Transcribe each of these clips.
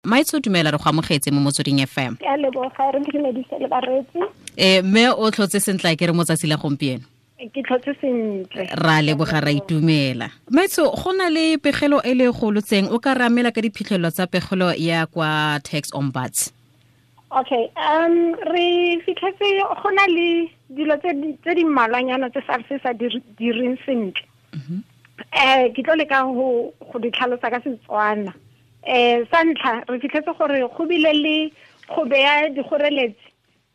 Maitso, dumela, re go amogetse mo Motsweding FM. Ke a leboga, re dumedise le bareetsi. Mme o tlhotse sentle ke re mo tsatsi la gompieno? Ke tlhotse sentle. Ra leboga, ra itumela. Maitso, go na le pegelo e le golotseng, o ka ramela ka diphitlhelelo tsa pegelo ya kwa Tax Ombuds? Okay, re fitlhetse go na le dilo tse di mmalwanyana tse SARS sa direng sentle. Ke tlo leka go di tlhalosa ka Setswana. Sa ntlha, re fitlhetse gore go bile le go beya dikgoreletsi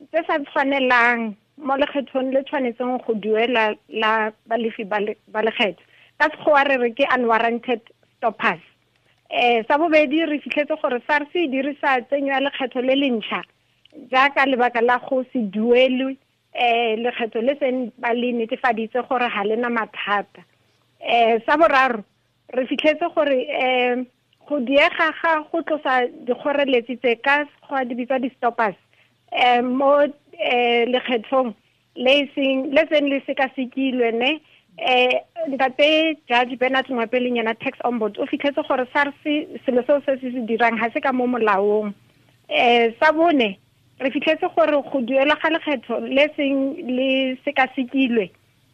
tse sa tshwanelang mo lekgethong le tshwanetseng go duela la balefi ba lekgetho. Ka Sekgowa re re ke unwarranted stoppers. Sa bobedi, re fitlhetse gore SARS e dirisa tsenyo ya lekgetho le le ntšha jaaka lebaka la go se duelwe lekgetho le seng ba le netefaditse gore ga le na mathata. Sa boraro, re fitlhetse gore go diega ga go tlosa dikgoreletsi tse, ka Sekgowa di bitswa di-stoppers, mo lekgethong le seng le seng le sekasekilwe ne. Ntate Judge Bernard Ngoepe yena tax ombud o fitlhetse gore SARS selo seo se se dirang ga se ka mo molaong. Sa bone, re fitlhetse gore go duelwa ga lekgetho le seng le sekasekilwe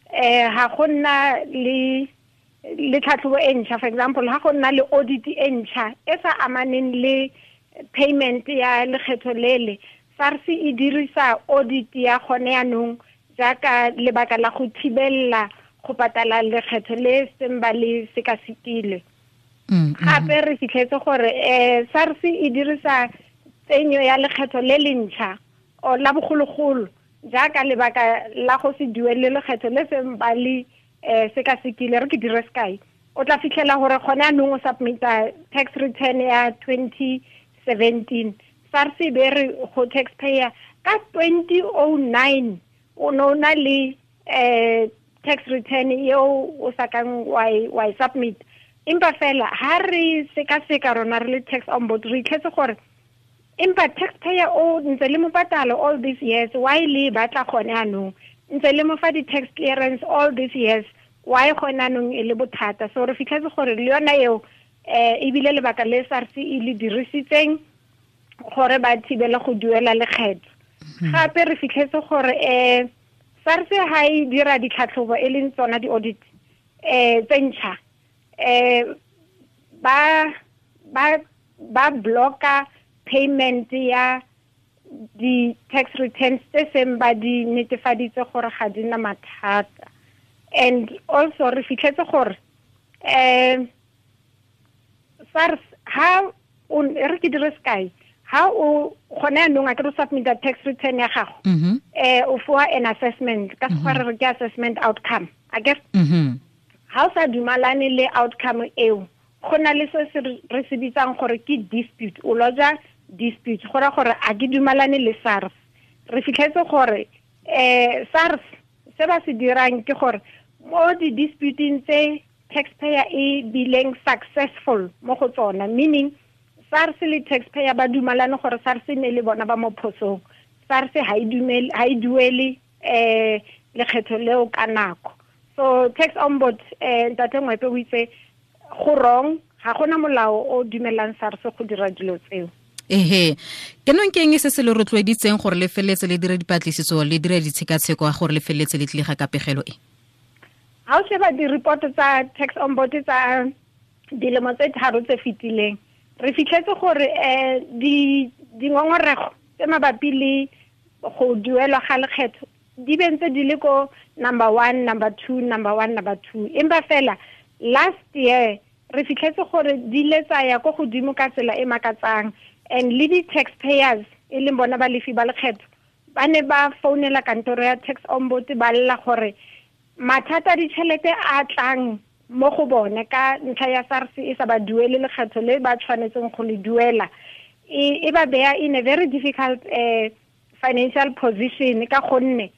ga go nna le tlhatlhobo e ntšha, for example ga go nna le audit e ntšha e sa amaneng le payment ya lekgetho lele, SARS e dirisa audit ya gone yanong jaaka lebaka la go thibelela go patala lekgetho le seng ba le sekasekile. Gape re fitlhetse gore SARS e dirisa tsenyo ya lekgetho le le ntšha o la bogologolo jaaka lebaka la go se duele lekgetho le seng ba le sekasekile. Re ke dire sekai, o tla fitlhela gore gone anong o submita tax return ya 2017, SARS e be re go taxpayer ka 2009 o ne o na le tax return eo o sa kang wa e submit. Empa fela ha re sekaseka rona re le tax ombud, re itlhetse gore empa taxpayer o ntse le mo patalo all these years, why le batla gone anong? Ntse le mo fa di-tax clearance all these years, why gone anong e le bothata? So re fitlhetse gore le yona eo ebile lebaka le SARS e le dirisitseng gore ba thibele go duela lekgetho. Gape re fitlhetse gore SARS ha e dira ditlhatlhobo, e leng tsona di-audit tse ntšha, ba blocka payment ya di-tax returns tse seng ba di netefaditse gore ga di na mathata. And also re fitlhetse gore SARS ha o re ke dire sekai, ha o gone anong a ke re submita tax return ya gago, o foa an assessment, ka Sekgowa re re ke assessment outcome a ke. Ha o sa dumalane le outcome eo, go na le se se re se bitsang gore ke dispute, o lodge dispute go ra gore a ke dumalane le SARS. Re fitlhetse gore SARS se ba se dirang ke gore mo di-disputing tse taxpayer e bileng successful mo go tsona, meaning SARS le taxpayer ba dumalane gore SARS ne le bona ba mo phosong, SARS ha e dumele, ha e duele lekgetho leo ka nako. So tax ombud ntate Ngoepe o itse go wrong, ga gona molao o dumelang SARS go dira dilo tseo. Ehe, ke nong ke eng se se le rotloeditseng gore le feleletse le dire dipatlisiso, le dire ditshekatsheko, gore le feleletse le tlile ga ka pegelo e? Ha o sheba di-report tsa tax ombud tsa dilemo tse 3 tse fetileng, re fitlhetse gore dingongorego tse mabapi le go duelwa ga lekgetho di bentse di le ko number 1, number 2, number 1, number 2. Empa fela last year re fitlhetse gore di le tsaya ko godimo ka tsela e makatsang, and le di-taxpayers e leng bona balefi ba lekgetho ba ne ba founela kantoro ya tax ombud ba lla gore mathata a ditšhelete a tlang mo go bone ka ntlha ya SARS e sa ba duele lekgetho le ba tshwanetseng go le duela, e ba beya in a very difficult financial position, ka gonne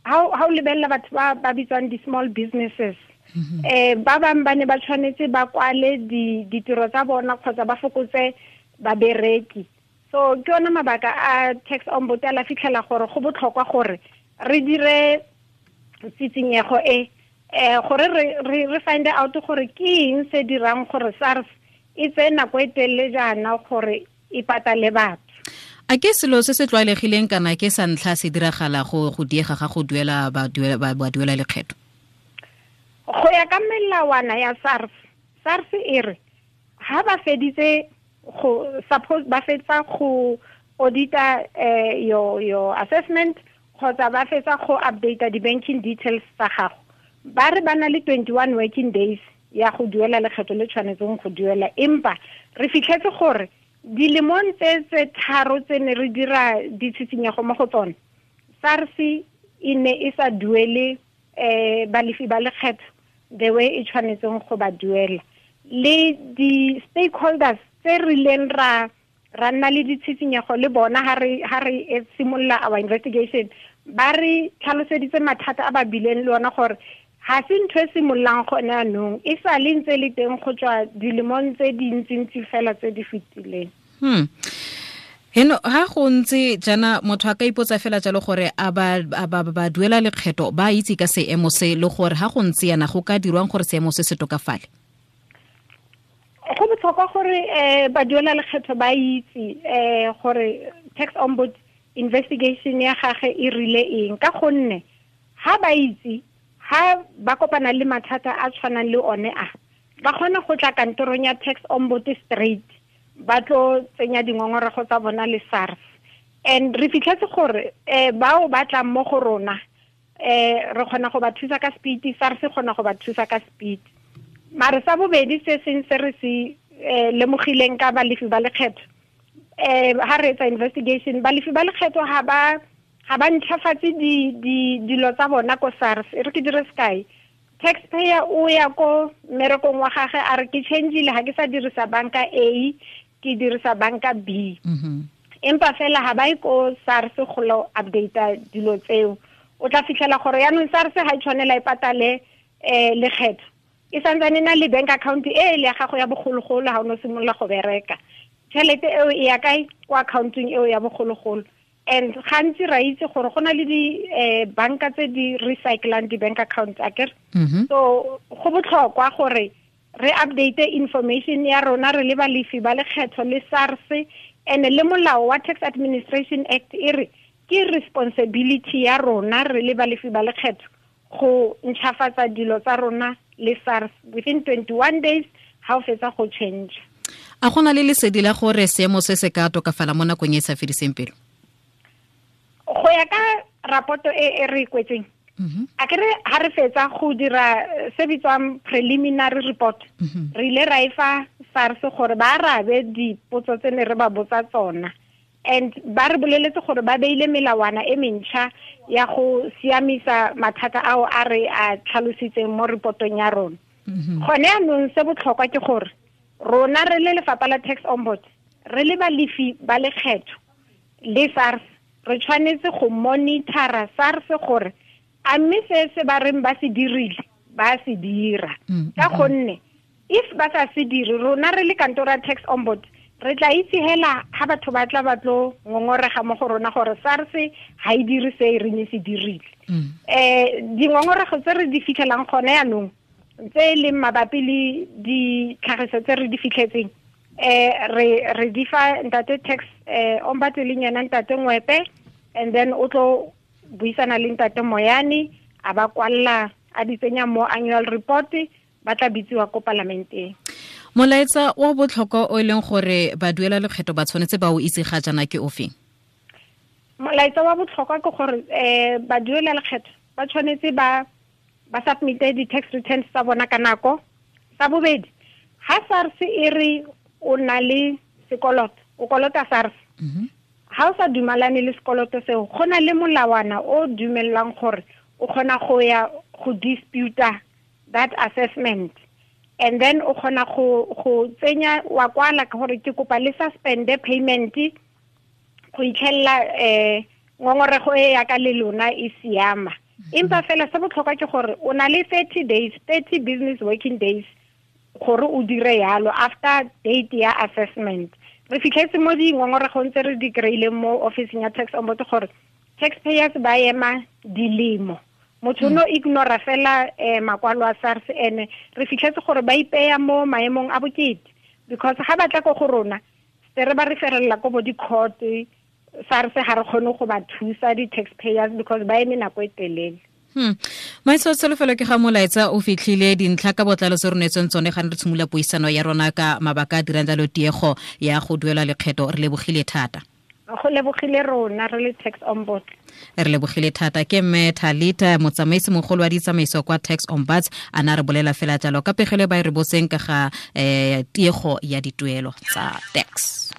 ha o lebelela batho ba bitswang di-small businesses, ba bangwe ba ne ba tshwanetse ba kwale ditiro tsa bona kgotsa ba fokotse babereki. So ke yona mabaka a tax ombud a la fitlhela gore go botlhokwa gore re dire tsitsinyego e gore re find out gore ke eng se dirang gore SARS e tseye nako e telele jaana gore e patale batho. A ke selo se se tlwaelegileng kana ke sa ntlha se diragala go diega ga go duela ba duela lekgetho? Go ya ka melawana ya SARS, SARS e re ha ba feditse go suppose ba fetsa go audita your assessment kgotsa ba fetsa go update di-banking details tsa gago, ba re ba na le 21 working days ya go duela lekgetho le tshwanetseng go duela. Empa re fitlhetse gore dilemong tse tharo tse ne re dira ditshitshinyego mo go tsone, SARS e ne e sa duele balefi ba lekgetho the way e tshwanetseng go ba duela. Le di-stakeholders tse rileng ra nna le ditshitshinyego le bona ha re simolola our investigation, ba re tlhaloseditse mathata a ba bileng le ona gore ha se ntho e simololang gone anong, e sa le ntse le teng go tswa dilemong tse dintsintsi fela tse di fetileng. Heno ha go ntse jana motho a ka ipotsa fela jalo gore a ba duela lekgetho ba itse ka seemo se, le gore ha go ntse yana go ka dirwang gore seemo se se tokafale? Go botlhokwa gore ba duela lekgetho ba itse gore tax ombud investigation ya gagwe e rile eng, ka gonne ha ba itse, ha ba kopana le mathata a tshwanang le one a, ba kgona go tla kantorong ya tax ombud straight ba tlo tsenya dingongorego tsa bona le SARS. And re fitlhetse gore bao ba tlang mo go rona re kgona go ba thusa ka speed, SARS e kgona go ba thusa ka speed. Mare sa bobedi se seng se re se lemogileng ka balefi ba lekgetho, ha re etsa investigation, balefi ba lekgetho ha ba ntšhafatse dilo tsa bona ko SARS. E re ke dire sekai, taxpayer o ya ko mmerekong wa gagwe a re ke changeile, ha ke sa dirisa banka A, ke dirisa banka B. Empa fela ha ba ye ko SARS go lo update dilo tseo. O tla fitlhela gore yaanong SARS ha e tshwanela e patale lekgetho, e santsane na le bank account e le ya gago ya bogologolo ha o no simolola go bereka. Tšhelete eo e ya kae? Ko accountong eo ya bogologolo. And gantsi ra itse gore go na le di banka tse di recyclang di-bank accounts akere. So go botlhokwa gore re update information ya rona re le balefi ba lekgetho le SARS, and le molao wa Tax Administration Act e re ke responsibility ya rona re le balefi ba lekgetho go ntšhafatsa dilo tsa rona le SARS within 21 days ha o fetsa go change. A gona le lesedi la gore seemo se se ka tokafala mo nakong e e sa fediseng pelo? Go ya ka rapoto e re kwetseng, a kere ha re fetsa go dira se bitswang preliminary report, re ile ra e fa SARS gore ba arabe dipotso tse ne re ba botsa tsona, and ba re boleletse gore ba beile melawana e mentšha ya go siamisa mathata ao a re a tlhalositseng mo reportong ya rona. Gone anong se botlhokwa ke gore rona re le lefapha la tax ombud, re le balefi ba lekgetho le SARS, re tshwanetse go monitora SARS gore a mme se ba reng ba se dirile ba se dira. Ka gonne if ba sa se dire, rona re le kantoro ya tax ombud re tla itse hela ha batho ba tla ba tlo ngongorega mo go rona gore SARS ha e dire se e reng e se dirile. Dingongorego tse re di fitlhelang gone yanong tse e leng mabapi le ditlhagiso tse re di fitlhetseng, re di fa ntate tax ombud e leng yena ntate Ngwepe, and then o tlo buisana le ntate Moyane, a ba kwalla a di tsenya mo annual report, ba tla bitsiwa ko palamenteng. Molaetsa wa botlhokwa o e leng gore ba duela lekgetho ba tshwanetse ba o itse ga jana ke ofeng? Molaetsa wa botlhokwa ke gore ba duela lekgetho ba tshwanetse ba submite di-tax returns tsa bona ka nako. Sa bobedi, ha SARS e re o na le sekoloto, o kolota SARS, ha o sa dumalane le sekoloto seo, go na le molawana o dumellang gore o kgona go ya go disputa that assessment, and then o kgona go tsenya wa kwala gore ke kopa le suspende payment go itlhella ngongorego e ya ka le lona e siama. Empa fela se botlhokwa ke gore o na le 30 days, 30 business working days gore o dire yalo after date ya assessment. Re fitlhetse mo dingongoregong tse re di kry-ileng mo officing ya tax ombud gore taxpayers ba ema dilemo, motho no ignora fela makwalo a SARS, ene re fitlhetse gore ba ipeya mo maemong a bokete, because ga ba tla ko go rona Re ba referela ko bo di-court, SARS ga re kgone go ba thusa di-taxpayers because ba eme nako e telele. Maitso tsholofelo ke ga molaetsa o fitlhile dintlha ka botlalo tse re neetsweng tsone ga ne re tshimolola puisano ya rona ka mabaka a dirang jalo tiego ya go duela lekgetho. Re lebogile thata. Go lebogile rona re le Tax Ombuds. Re lebogile thata. Ke mme Thalita, motsamaisi mogolo wa ditsamaiso kwa Tax Ombuds, a na re bolela fela jalo ka pegelo e ba e re botseng ka ga tiego ya dituelo tsa tax.